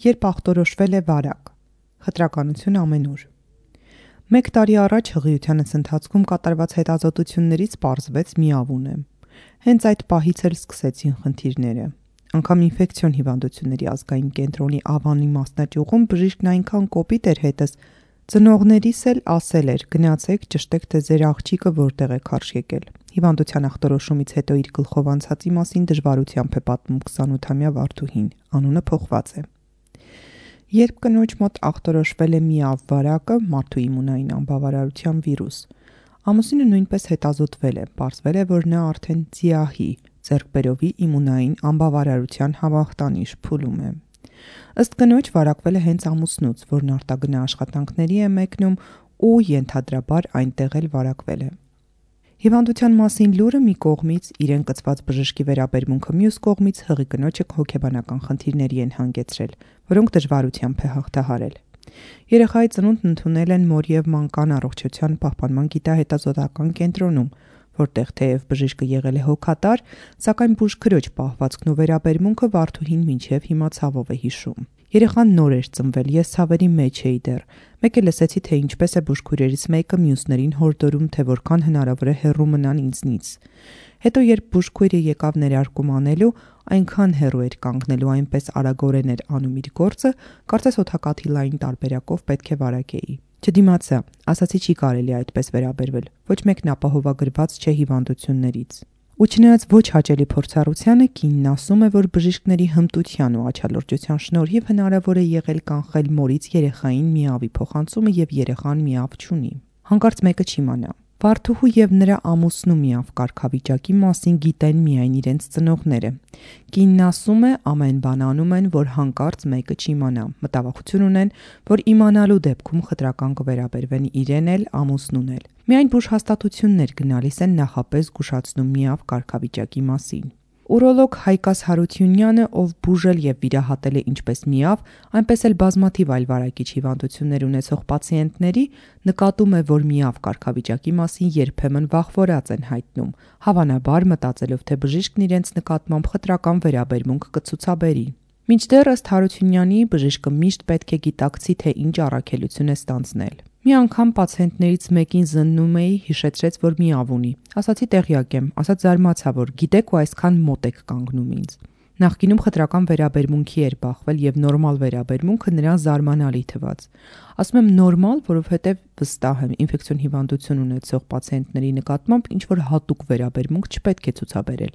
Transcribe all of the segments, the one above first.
երբ ախտորոշվել է վարակ։ Խտրականություն ամենուր։ 1 տարի առաջ հղիությանս ընթացքում կատարված հետազոտություններից պարզվեց միավուն եմ։ Հենց այդ պահից էլ սկսեցին խնդիրները։ Անգամ ինֆեկցիոն հիվանդությունների ազգային կենտրոնի Ավանի մասնաճյուղում բժիշկն այնքան կոպիտ էր հետս, ծնողներիս էլ ասել էր՝ գնացեք ճշտեք, թե ձեր աղջիկը որտեղ է քարշ եկել։ Հիվանդության ախտորոշումից հետո իր գլխով անցածի մասին դժվարությամբ է պատմում 28-ամյա Վարդուհին, անունը փոխված է։ Երբ կնոջ մոտ ախտորոշվել է միավ վարակը, մարդու իմունային անբավարարության վիրուս, ամուսինը նույնպես հետազոտվել է, պարզվել է, որ նա արդեն ձիահի, ձեռքբերովի իմունային անբավարարության համախտանիշ փուլում է։ Ըստ կնոջ վարակվել է հենց ամուսնուց, որն արտագնա աշխատանքների է մեկնում ու ենթադրաբար այնտեղ էլ վարակվել է։ Հիվանդության մասին լուրը մի կողմից, իրեն կցված բժշկի վերաբերմունքը մյուս կողմից հղի կնոջը հոգեբանական խնդիրների են հանգեցրել, որոնք դժվարությամբ է հաղթահարել։ Երեխայի ծնունդն ընդունել են մոր և մանկան առողջության պահպանման գիտահետազոտական կենտրոնում, որտեղ թեև բժիշկը եղել է հոգատար, սակայն բուժքրոջ պահվածքն ու վերաբերմունքը Վարդուհին մինչև հիմա ցավով է հիշում։ Երեխան նոր էր ծնվել, ես ցավերի մեջ էի դեռ։ Մեկ է լսեցի, թե ինչպես է բուժքույրերից մեկը մյուսներին հորդորում, թե որքան հնարավոր է հեռու մնան ինձնից։ Հետո երբ բուժքույրը եկավ ներարկում անելու, այնքան հեռու էր կանգնելու, այնպես արագորեն էր անում իր գործը, կարծես օդակաթի լայն տարբերակով պետք է վարակեի։ Չդիմացա, ասացի չի կարելի այդպես վերաբերվել, ոչ մեկն ապահովագրված չէ հիվանդություններից։ Ու չնայած ոչ հաճելի փորձառությանը, կինն ասում է, որ բժիշկների հմտության ու աչալրջության շնորհիվ հնարավոր է եղել կանխել մորից երեխային միավի փոխանցումը եւ երեխան միավ չունի։ Հանկարծ մեկը չիմանա։ Վարդուհու եւ նրա ամուսնու միավ կարգավիճակի մասին գիտեն միայն իրենց ծնողները։ Կինն ասում է, ամեն բան անում են, որ հանկարծ մեկը չիմանա։ Մտավախություն ունեն, որ իմանալու դեպքում խտրական կվերաբերվեն իրեն էլ, ամուսնուն էլ։ Միայն բուժհաստատություններ գնալիս են նախապես զգուշացնում միավ կարգավիճակի մասին։ Ուրոլոգ Հայկաս Հարությունյանը, ով բուժել եւ վիրահատել է ինչպես միավ, այնպես էլ բազմաթիվ այլ վարակիչ հիվանդություններ ունեցող պացիենտների, նկատում է, որ միավ կարգավիճակի մասին երբեմն վախվորած են հայտնում, հավանաբար մտածելով, թե բժիշկն իրենց նկատմամբ խտրական վերաբերմունք կցուցաբերի։ Մինչդեռ ըստ Հարությունյանի, բժիշկը միշտ պետք է գիտակցի, թե ինչ առաքելություն է ստանձնել։ Մի անգամ պացիենտներից մեկին զննում էի, հիշեցրեց, որ միավ ունի։ Ասացի տեղյակ եմ, ասաց զարմացա, որ գիտեք ու այսքան մոտ եք կանգնում ինձ։ Նախկինում խտրական վերաբերմունքի էր բախվել եւ նորմալ վերաբերմունքը նրան զարմանալի թվաց։ Ասում եմ նորմալ, որովհետեւ վստահ եմ, ինֆեկցիոն հիվանդություն ունեցող պացիենտների նկատմամբ ինչ որ հատուկ վերաբերմունք չպետք է ցուցաբերել։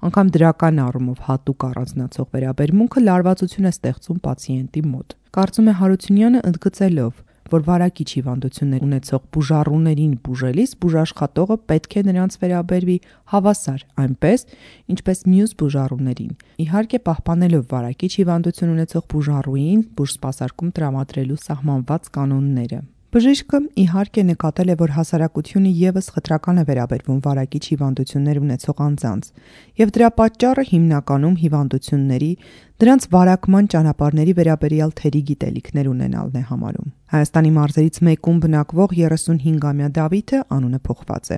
Անգամ դրական առումով հատուկ առանձնացող վերաբերմունքը լարվածություն է ստեղծում պացիենտի մոտ։ Կարծում է Հարությունյանը ընդգծելով, որ վարակիչ հիվանդություններ ունեցող բուժառուներին բուժելիս բուժաշխատողը պետք է նրանց վերաբերվի հավասար, այնպես, ինչպես մյուս բուժառուներին, իհարկե պահպանելով վարակիչ հիվանդություն ունեցող բուժառուին բուժսպասարկում տրամադրելու սահմանված կանոնները։ Բժիշկը իհարկե նկատել է, որ հասարակությունը եւս խտրական է վերաբերվում վարակիչ հիվանդություններ ունեցող անձանց, եւ դրա պատճառը հիմնականում հիվանդությունների, դրանց վարակման ճանապարհների վերաբերյալ թերի գիտելիքներ ունենալն է համարում։ Հայաստանի մարզերից մեկում բնակվող 35-ամյա Դավիթը, անունը փոխված է,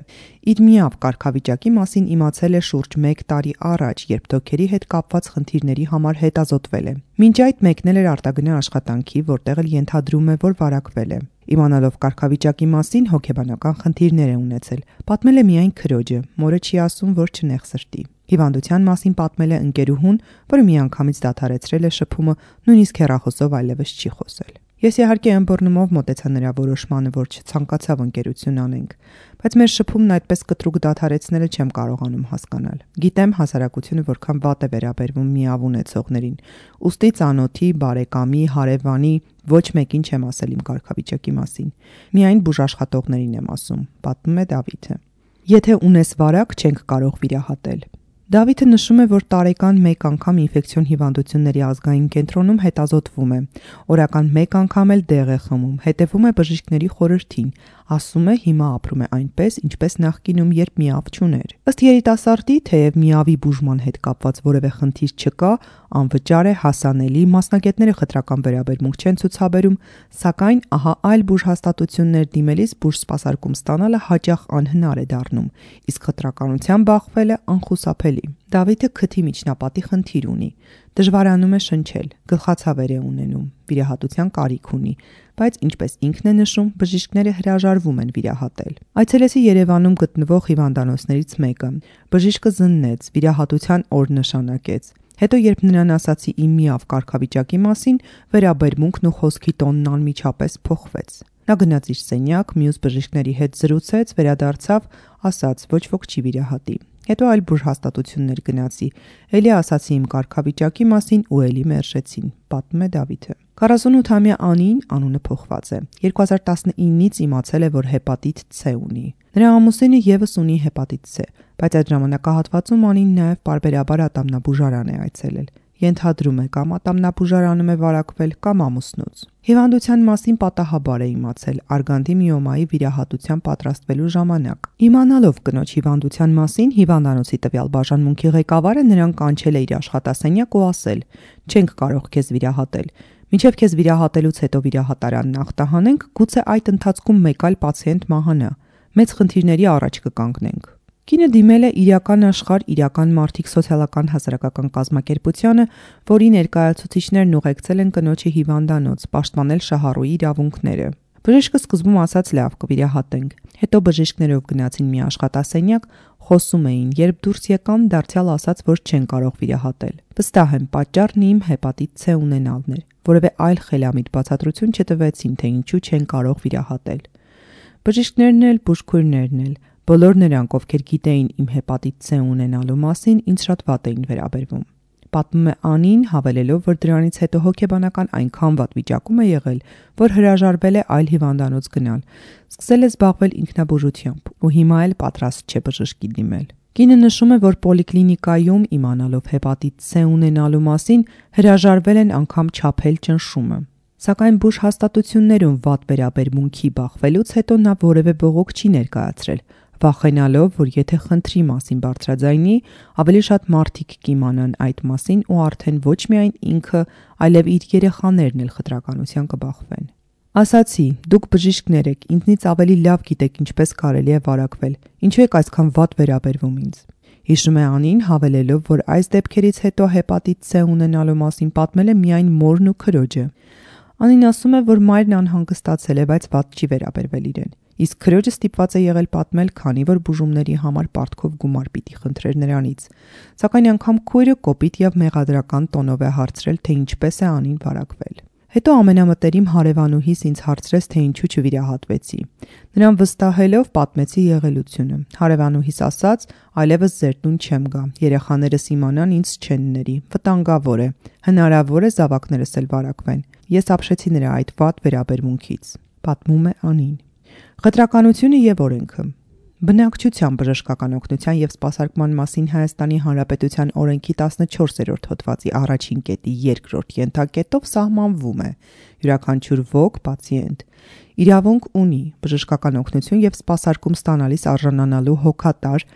իր միավ կարգավիճակի մասին իմացել է շուրջ 1 տարի առաջ, երբ դոկերի հետ կապված խնդիրների համար հետազոտվել է։ Մինչ այդ մեկնել էր արտագնա աշխատանքի, որտեղ էլ ենթադրում է, որ վարակվել է։ Իմանալով կարգավիճակի մասին հոգեբանական խնդիրներ է ունեցել։ Պատմել է միայն քրոջը, մորը չի ասում, որ չնեղ սրտի։ Հիվանդության մասին պատմել է ընկերուհուն, որը միանգամից դադարեցրել է շփումը, նույնիսկ հեռախոսով այլևս չի խոսել։ Ես իհարկե ըմբռնումով մոտեցա նրա որոշմանը, որ չցանկացավ ընկերություն անենք, բայց մեր շփումն այդպես կտրուկ դադարեցնելը չեմ կարողանում հասկանալ։ Գիտեմ հասարակությունը որքան վատ է վերաբերվում միավ ունեցողներին, ուստի ծանոթի, բարեկամի, հարևանի ոչ մեկին չեմ ասել իմ կարգավիճակի մասին։ Միայն բուժաշխատողներին եմ ասում, պատմում է Դավիթը։ Եթե ունես վարակ, չենք կարող վիրահատել։ Դավիթը նշում է, որ տարեկան 1 անգամ ինֆեկցիոն հիվանդությունների ազգային կենտրոնում հետազոտվում է, օրական 1 անգամ էլ դեղ է խմում, հետևում է բժիշկների խորհրդին, ասում է հիմա ապրում է այնպես, ինչպես նախկինում, երբ միավ չուներ։ Ըստ երիտասարդի, թեև միավի բուժման հետ կապված որևէ խնդիր չկա, անվճար է, հասանելի, մասնագետները խտրական վերաբերմունք չեն ցուցաբերում, սակայն ահա այլ բուժհաստատություններ դիմելիս բուժսպասարկում ստանալը հաճախ անհնար է դառնում, իսկ խտրականության բախվելը անխուսափելի։ Դավիթը քթի միջնապատի խնդիր ունի, դժվարանում է շնչել, գլխացավեր է ունենում, վիրահատության կարիք ունի, բայց ինչպես ինքն է նշում, բժիշկները հրաժարվում են վիրահատել։ Այցելեցի Երևանում գտնվող հիվանդանոցներից մեկը, բժիշկը զննեց, վիրահատության օր նշանակեց։ Հետո երբ նրան ասացի իմ միավ կարգավիճակի մասին, վերաբերմունքն ու խոսքի տոնն անմիջապես փոխվեց։ Նա գնաց իր սենյակ, մյուս բժիշկների հետ զրուցեց, վերադարձավ, ասաց ոչ ոք չի վիրահատի։ Հետո այլ բուրհաստատություններ գնացի, էլի ասացի իմ կարգավիճակի մասին ու էլի մերժեցին, պատմում է Դավիթը։ 48-ամյա Անին, անունը փոխված է, 2019-ից իմացել է, որ հեպատիտ C ունի։ Նրա ամուսինը եւս ունի հեպատիտ C, բայց այդ ժամանակահատվածում Անին նաեւ պարբերաբար ատամնաբուժարան է այցելել։ Ենթադրում է կամ ատամնաբուժարանում է վարակվել կամ ամուսնուց։ Հիվանդության մասին պատահաբար է իմացել արգանդի միոմայի վիրահատության պատրաստվելու ժամանակ։ Իմանալով կնոջ հիվանդության մասին, հիվանդանոցի տվյալ բաժանմունքի ղեկավարը նրան կանչել է իր աշխատասենյակ ու ասել. «Չենք կարող քեզ վիրահատել։ Մինչև քեզ վիրահատելուց հետո վիրահատարանն ախտահանենք, գուցե այդ ընթացքում մեկ այլ պացիենտ մահանա։ Մեծ խնդիրների առաջ կկանգնենք»։ Կինը դիմել է իրական աշխարհ իրական մարդիկ սոցիալական հասարակական կազմակերպությանը, որի ներկայացուցիչներն ուղեկցել են կնոջի հիվանդանոց, պաշտպանել շահառուի իրավունքները։ Բժիշկը սկզբում ասաց լավ կվիրահատենք, հետո բժիշկներով գնացին մի աշխատասենյակ, խոսում էին, երբ դուրս եկան, դարձյալ ասաց, որ չեն կարող վիրահատել։ Վստահ եմ, պատճառն իմ հեպատիտ C ունենալն էր, որևէ այլ խելամիտ բացատրություն չտվեցին, թե ինչու չեն կարող վիրահատել։ Բժիշկներն էլ, բուժքույրներն էլ, բոլոր նրանք, ովքեր գիտեին իմ հեպատիտ C ունենալու մասին, ինձ շատ վատ էին վերաբերվում։ Պատմում է Անին, հավելելով, որ դրանից հետո հոգեբանական այնքան վատ վիճակում է եղել, որ հրաժարվել է այլ հիվանդանոց գնալ, սկսել է զբաղվել ինքնաբուժությամբ ու հիմա էլ պատրաստ չէ բժշկի դիմել։ Կինը նշում է, որ պոլիկլինիկայում իմանալով հեպատիտ C ունենալու մասին, հրաժարվել են անգամ չափել ճնշումը։ Սակայն բուժհաստատություններում վատ վերաբերմունքի բախվելուց հետո նա որևէ բողոք չի ներկայացրել, վախենալով, որ եթե խնդրի մասին բարձրաձայնի, ավելի շատ մարդիկ կիմանան այդ մասին ու արդեն ոչ միայն ինքը, այլև իր երեխաներն էլ խտրականության կբախվեն։ Ասացի, դուք բժիշկներ եք, ինձնից ավելի լավ գիտեք ինչպես կարելի է վարակվել, ինչու եք այսքան վատ վերաբերվում ինձ։ Հիշում է Անին, հավելելով, որ այս դեպքերից հետո հեպատիտ C ունենալու մասին պատմել է միայն մորն ու քրոջը։ Անին ասում է, որ մայրն անհանգստացել է, բայց վատ չի վերաբերվել իրեն։ Իսկ քրոջը ստիպված է եղել պատմել, քանի որ բուժումների համար պարտքով գումար պիտի խնդրեր նրանից։ Սակայն անգամ քույրը կոպիտ եւ մեղադրական տոնով է հարցրել, թե ինչպես է Անին վարակվել։ Հետո ամենամտերիմ հարևանուհիս ինձ հարցրեց, թե ինչու չվիրահատվեցի։ Նրան վստահելով պատմեցի եղելությունը։ Հարևանուհիս ասաց, այլևս ձեր տուն չեմ գա, երեխաներս իմանան ինձ չեն ների, վտանգավոր է, հնարավոր է զավակներս էլ վարակվեն։ Ես ապշեցի նրա այդ վատ վերաբերմունքից, պատմում է Անին։ Խտրականությունը եւ օրենքը։ Բնակչության բժշկական օգնության եւ սպասարկման մասին Հայաստանի Հանրապետության օրենքի 14-րդ հոդվածի առաջին կետի 2-րդ ենթակետով սահմանվում է. յուրաքանչյուր ոք, պացիենտ իրավունք ունի բժշկական օգնություն եւ սպասարկում ստանալիս արժանանալու հոգատար,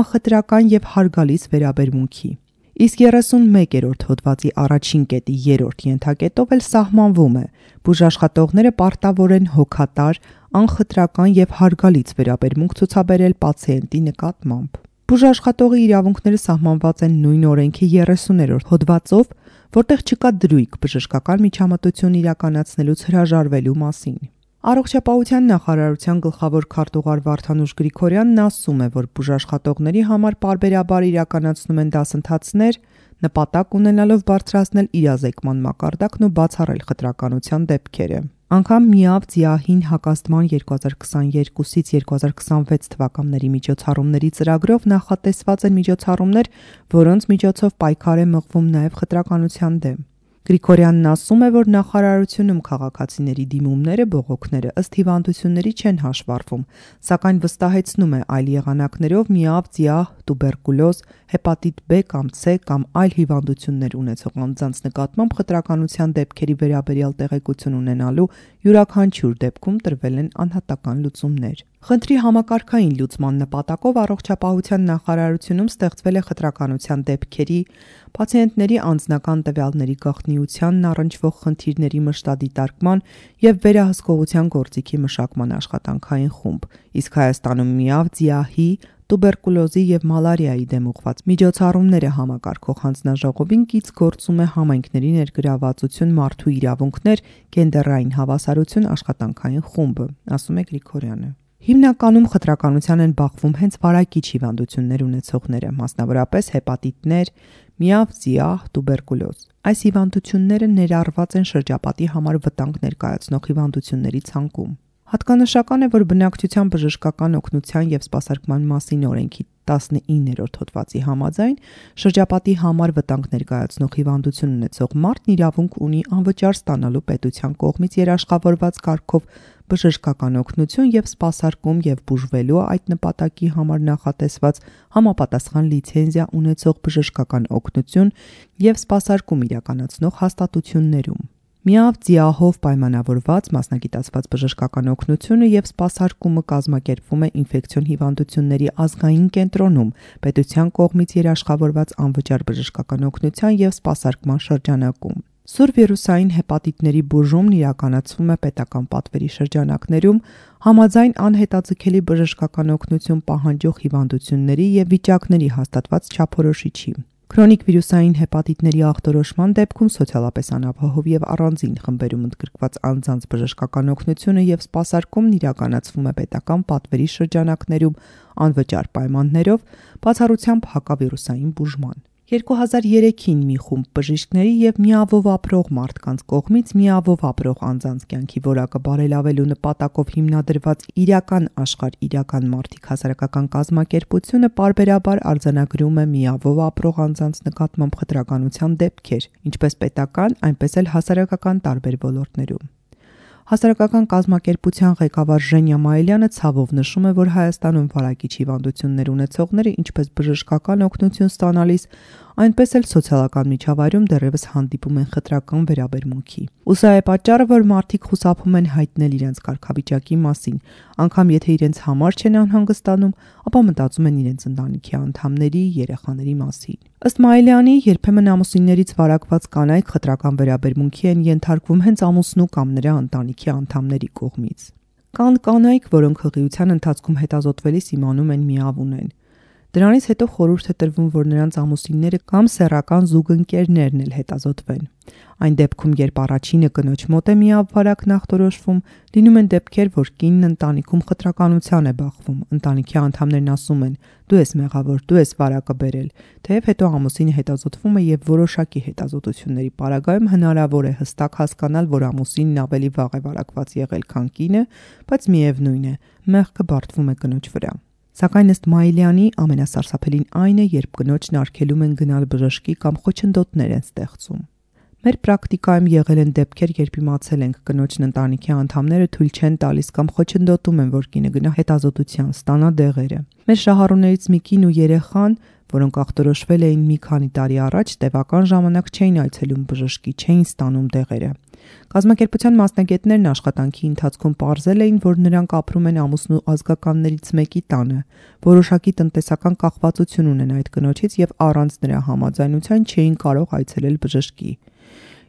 անխտրական եւ հարգալից վերաբերմունքի։ Իսկ 31-րդ հոդվածի առաջին կետի 3-րդ ենթակետով էլ սահմանվում է. բուժաշխատողները պարտավոր են հոգատար, անխտրական եւ հարգալից վերաբերմունք ցուցաբերել պացիենտի նկատմամբ։ Բուժաշխատողի իրավունքները սահմանված են նույն օրենքի 30-րդ հոդվածով, որտեղ չկա դրույք բժշկական միջամտություն իրականացնելուց հրաժարվելու մասին։ Առողջապահության նախարարության գլխավոր քարտուղար Վարդանուշ Գրիգորյանն ասում է, որ բուժաշխատողների համար պարբերաբար իրականացնում են դասընթացներ, նպատակ ունենալով բարձրացնել իրազեկման մակարդակն ու բացառել խտրականության դեպքերը։ Անգամ ՄԻԱՎ ՁԻԱՀ-ին հակազդման 2022-ից 2026 թվականների միջոցառումների ծրագրով նախատեսված են միջոցառումներ, որոնց միջոցով պայքար է մղվում նաև խտրականության դեմ։ Գրիգորյանն ասում է, որ նախարարությունում քաղաքացիների դիմումները, բողոքները ըստ հիվանդությունների չեն հաշվառվում, սակայն վստահեցնում է այլ եղանակներով ՄԻԱՎ ՁԻԱՀ, տուբերկուլոզ, հեպատիտ B կամ C կամ այլ հիվանդություններ ունեցող անձանց նկատմամբ խտրականության դեպքերի վերաբերյալ տեղեկություն ունենալու յուրաքանչյուր դեպքում տրվել են անհատական լուծումներ։ Խնդրի համակարգային լուծման նպատակով առողջապահության նախարարությունում ստեղծվել է խտրականության դեպքերի, պացիենտների անձնական տվյալների գաղտնիությանն առնչվող խնդիրների մշտադիտարկման եւ վերահսկողության գործիքի մշակման աշխատանքային խումբ, իսկ Հայաստանում ՄԻԱՎ ՁԻԱՀ-ի, տուբերկուլոզի եւ մալարիայի դեմ ուղղված միջոցառումները համակարգող հանձնաժողովին կից գործում է համայնքների ներգրավվածություն, մարդու իրավունքներ, գենդերային հավասարություն, աշխատանքային խումբը, ասում է Գրիգորյանը։ Հիմնականում խտրականության են բախվում հենց վարակիչ հիվանդություններ ունեցողները, մասնավորապես հեպատիտներ, միավ, զիահ, տուբերկուլոզ։ Այս հիվանդությունները ներառված են շրջապատի համար վտանգ ներկայացնող հիվանդությունների ցանկում։ Հատկանշական է, որ բնակչության բժշկական օգնության եւ սպասարկման մասին օրենքի 19-րդ հոդվածի համաձայն շրջապատի համար վտանգ ներկայացնող հիվանդություն ունեցող մարդն իրավունք ունի անվճար ստանալու պետության կողմից երաշխավորված կարգով բժշկական օգնություն եւ սպասարկում եւ բուժվելու այդ նպատակի համար նախատեսված համապատասխան լիցենզիա ունեցող բժշկական օգնություն եւ սպասարկում իրականացնող հաստատություններում։ Միավ ձիահով պայմանավորված մասնագիտացված բժշկական օգնությունը եւ սպասարկումը կազմակերպվում է ինֆեկցիոն հիվանդությունների ազգային կենտրոնում պետության կողմից երաշխավորված անվճար բժշկական օգնության եւ սպասարկման շրջանակում։ Սուր վիրուսային հեպատիտների բուժումն իրականացվում է պետական պատվերի շրջանակներում համաձայն անհետաձգելի բժշկական օգնություն պահանջող հիվանդությունների եւ վիճակների հաստատված չափորոշիչի։ Քրոնիկ վիրուսային հեպատիտների ախտորոշման դեպքում սոցիալապես անապահով եւ առանձին խմբերում ընդգրկված անձանց բժշկական օգնությունը եւ սպասարկումն իրականացվում է պետական պատվերի շրջանակներում անվճար պայմաններով, բացառությամբ հակավիրուսային բուժման։ 2003-ին մի խումբ բժիշկների եւ միավով ապրող մարդկանց կողմից միավով ապրող անձանց կյանքի որակը բարելավելու նպատակով հիմնադրված իրական աշխարհ իրական մարդիկ հասարակական կազմակերպությունը պարբերաբար արձանագրում է միավով ապրող անձանց նկատմամբ խտրականության դեպքեր, ինչպես պետական, այնպես էլ հասարակական տարբեր ոլորտներում։ Հասարակական կազմակերպության ղեկավար Ժենյա Մայիլյանը ցավով նշում է, որ Հայաստանում վարակիչ հիվանդություններ ունեցողները ինչպես բժշկական օգնություն ստանալիս, այնպես էլ սոցիալական միջավայրում դեռևս հանդիպում են խտրական վերաբերմունքի։ Ու սա է պատճառը, որ մարդիկ խուսափում են հայտնել իրենց կարգավիճակի մասին, անգամ եթե իրենց համար չեն անհանգստանում, ապա մտածում են իրենց ընտանիքի անդամների, երեխաների մասին։ Ըստ Մայիլյանի, երբեմն ամուսիններից վարակված կանայք խտրական վերաբերմունքի են ենթարկվում հենց ամուսնու կամ նրա ընտանիքի անդամների կողմից։ Կան կանայք, որոնք հղիության ընթացքում հետազոտվելիս իմանում են միավ ունեն։ Դրանից հետո խորհուրդ է տրվում, որ նրանց ամուսինները կամ սեռական զուգընկերներն էլ հետազոտվեն։ Այն դեպքում, երբ առաջինը կնոջ մոտ է միավ վարակն ախտորոշվում, լինում են դեպքեր, որ կինն ընտանիքում խտրականության է բախվում։ Ընտանիքի անդամներն ասում են. «Դու ես մեղավոր, դու ես վարակը բերել», թեև հետո ամուսինը հետազոտվում է եւ որոշակի հետազոտությունների պարագայում հնարավոր է հստակ հասկանալ, որ ամուսինն ավելի վաղ է վարակված եղել, քան կինը, բայց միևնույն է, մեղքը բարդվում է կնոջ վրա։ Սակայն ըստ Մայիլյանի ամենասարսափելին այն է, երբ կնոջն արգելում են գնալ բժշկի կամ խոչընդոտներ են ստեղծում։ Մեր պրակտիկայում եղել են դեպքեր, երբ իմացել ենք կնոջն ընտանիքի անդամները թույլ չեն տալիս կամ խոչընդոտում են, որ կինը գնա հետազոտության, ստանա դեղերը։ Մեր շահառուներից մի կին ու երեխան, որոնք ախտորոշվել էին մի քանի տարի առաջ, տևական ժամանակ չէին այցելում բժշկի, չէին ստանում դեղերը։ Կազմակերպության մասնագետներն աշխատանքի ընթացքում պարզել էին, որ նրանք ապրում են ամուսնու ազգականներից մեկի տանը, որոշակի տնտեսական կախվածություն ունեն այդ կնոջից եւ առանց նրա համաձայնության չէին կարող այցելել բժշկի։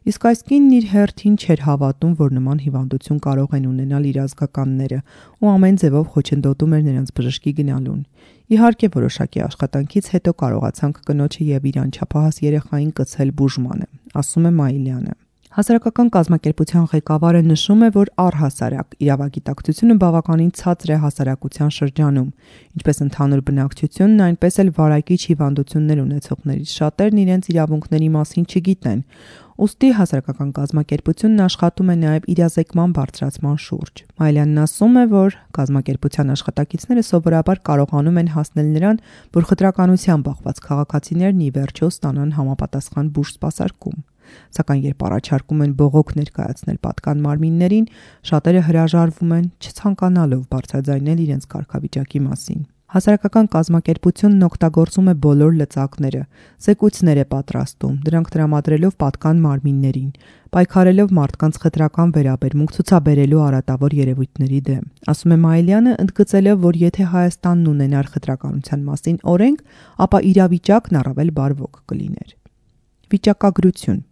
Իսկ այս կինն իր հերթին չէր հավատում, որ նման հիվանդություն կարող են ունենալ իր ազգականները ու ամեն ձևով խոչընդոտում էր նրանց բժշկի գնալուն։ Իհարկե, որոշակի աշխատանքից հետո կարողացանք կնոջը եւ իր անչափահաս երեխային կցել բուժմանը, ասում է Մայիլյանը։ Հասարակական կազմակերպության ղեկավարը նշում է, որ առհասարակ իրավագիտակցությունը բավականին ցածր է հասարակության շրջանում, ինչպես ընդհանուր բնակչությունն, այնպես էլ վարակիչ հիվանդություններ ունեցողներից շատերն իրենց իրավունքների մասին չգիտեն, ուստի հասարակական կազմակերպությունն աշխատում է նաև իրազեկման բարձրացման շուրջ։ Մայիլյանն ասում է, որ կազմակերպության աշխատակիցները սովորաբար կարողանում են հասնել նրան, որ խտրականության բախված քաղաքացիներն ի վերջո ստանան համապատասխան բուժ-սպասարկում։ Սակայն երբ առաջարկում են բողոք ներկայացնել պատկան մարմիններին, շատերը հրաժարվում են, չցանկանալով բարձրաձայնել իրենց կարգավիճակի մասին։ Հասարակական կազմակերպությունն օգտագործում է բոլոր լծակները, զեկույցներ է պատրաստում, դրանք տրամադրելով պատկան մարմիններին, պայքարելով մարդկանց խտրական վերաբերմունք ցուցաբերելու արատավոր երևույթների դեմ։ Ասում է Մայիլյանը, ընդգծելով, որ եթե Հայաստանն ունենար խտրականության մասին օրենք, ապա իրավիճակն առավել բարվոք կլիներ։ Վիճակագրություն։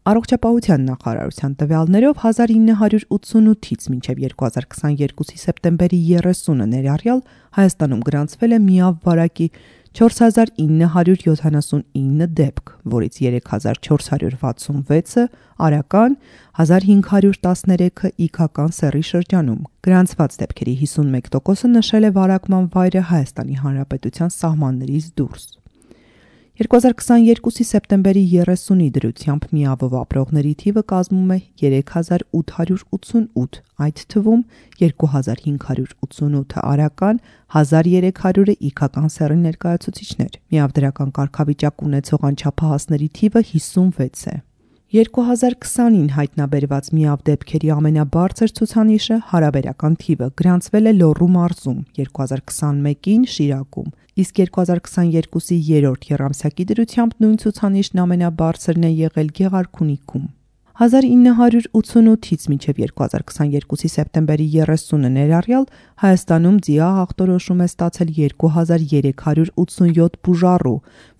Առողջապահության նախարարության տվյալներով 1988-ից մինչև 2022-ի սեպտեմբերի 30-ը ներառյալ Հայաստանում գրանցվել է միավ վարակի 4979 դեպք, որից 3466-ը արական, 1513-ը իգական սեռի շրջանում։ Գրանցված դեպքերի 51%-ը նշել է վարակման վայրը Հայաստանի Հանրապետության սահմաններից դուրս։ 2022-ի սեպտեմբերի 30-ի դրությամբ միավով ապրողների թիվը կազմում է 3888, այդ թվում 2588-ը արական, 1300-ը իգական սեռի ներկայացուցիչներ։ Միավ դրական կարգավիճակ ունեցող անչափահասների թիվը 56 է։ 2020-ին հայտնաբերված միավ դեպքերի ամենաբարձր ցուցանիշը հարաբերական թիվը գրանցվել է Լոռու մարզում, 2021-ին Շիրակում, իսկ 2022-ի երրորդ եռամսյակի դրությամբ նույն ցուցանիշն ամենաբարձրն է եղել Գեղարքունիքում։ 1988-ից մինչև 2022-ի սեպտեմբերի 30-ը ներառյալ Հայաստանում ՁԻԱ ախտորոշում է ստացել 2387 բուժառու,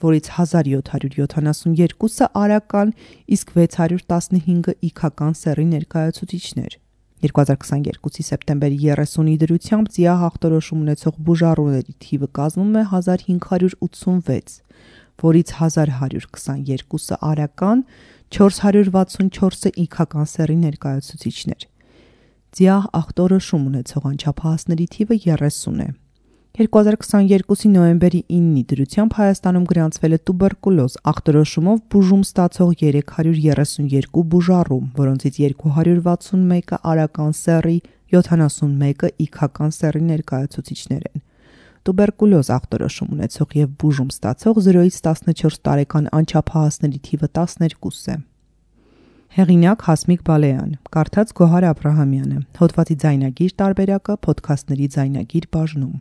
որից 1772-ը արական, իսկ 615-ը իգական սեռի ներկայացուցիչներ։ 2022-ի սեպտեմբերի 30-ի դրությամբ ԶԻԱ ախտորոշում ունեցող բուժառուների թիվը կազմում է 1586, որից 1122-ը արական, 464-ը իգական սեռի ներկայացուցիչներ։ ԶԻԱ ախտորոշում ունեցող անչափահասների թիվը 30 է։ 2022-ի նոյեմբերի 9-ի դրությամբ Հայաստանում գրանցվել է տուբերկուլոզ ախտորոշումով բուժում ստացող 332 բուժառու, որոնցից 261-ը արական սեռի, 71-ը իգական սեռի ներկայացուցիչներ են։ Տուբերկուլոզ ախտորոշում ունեցող և բուժում ստացող 0-ից 14 տարեկան անչափահասների թիվը 12 է։ Հեղինակ Հասմիկ Բալեյան, կարդաց Գոհար Աբրահամյանը, հոդվածի ձայնագիր տարբերակը Փոդքասթների ձայնագիր բաժնում։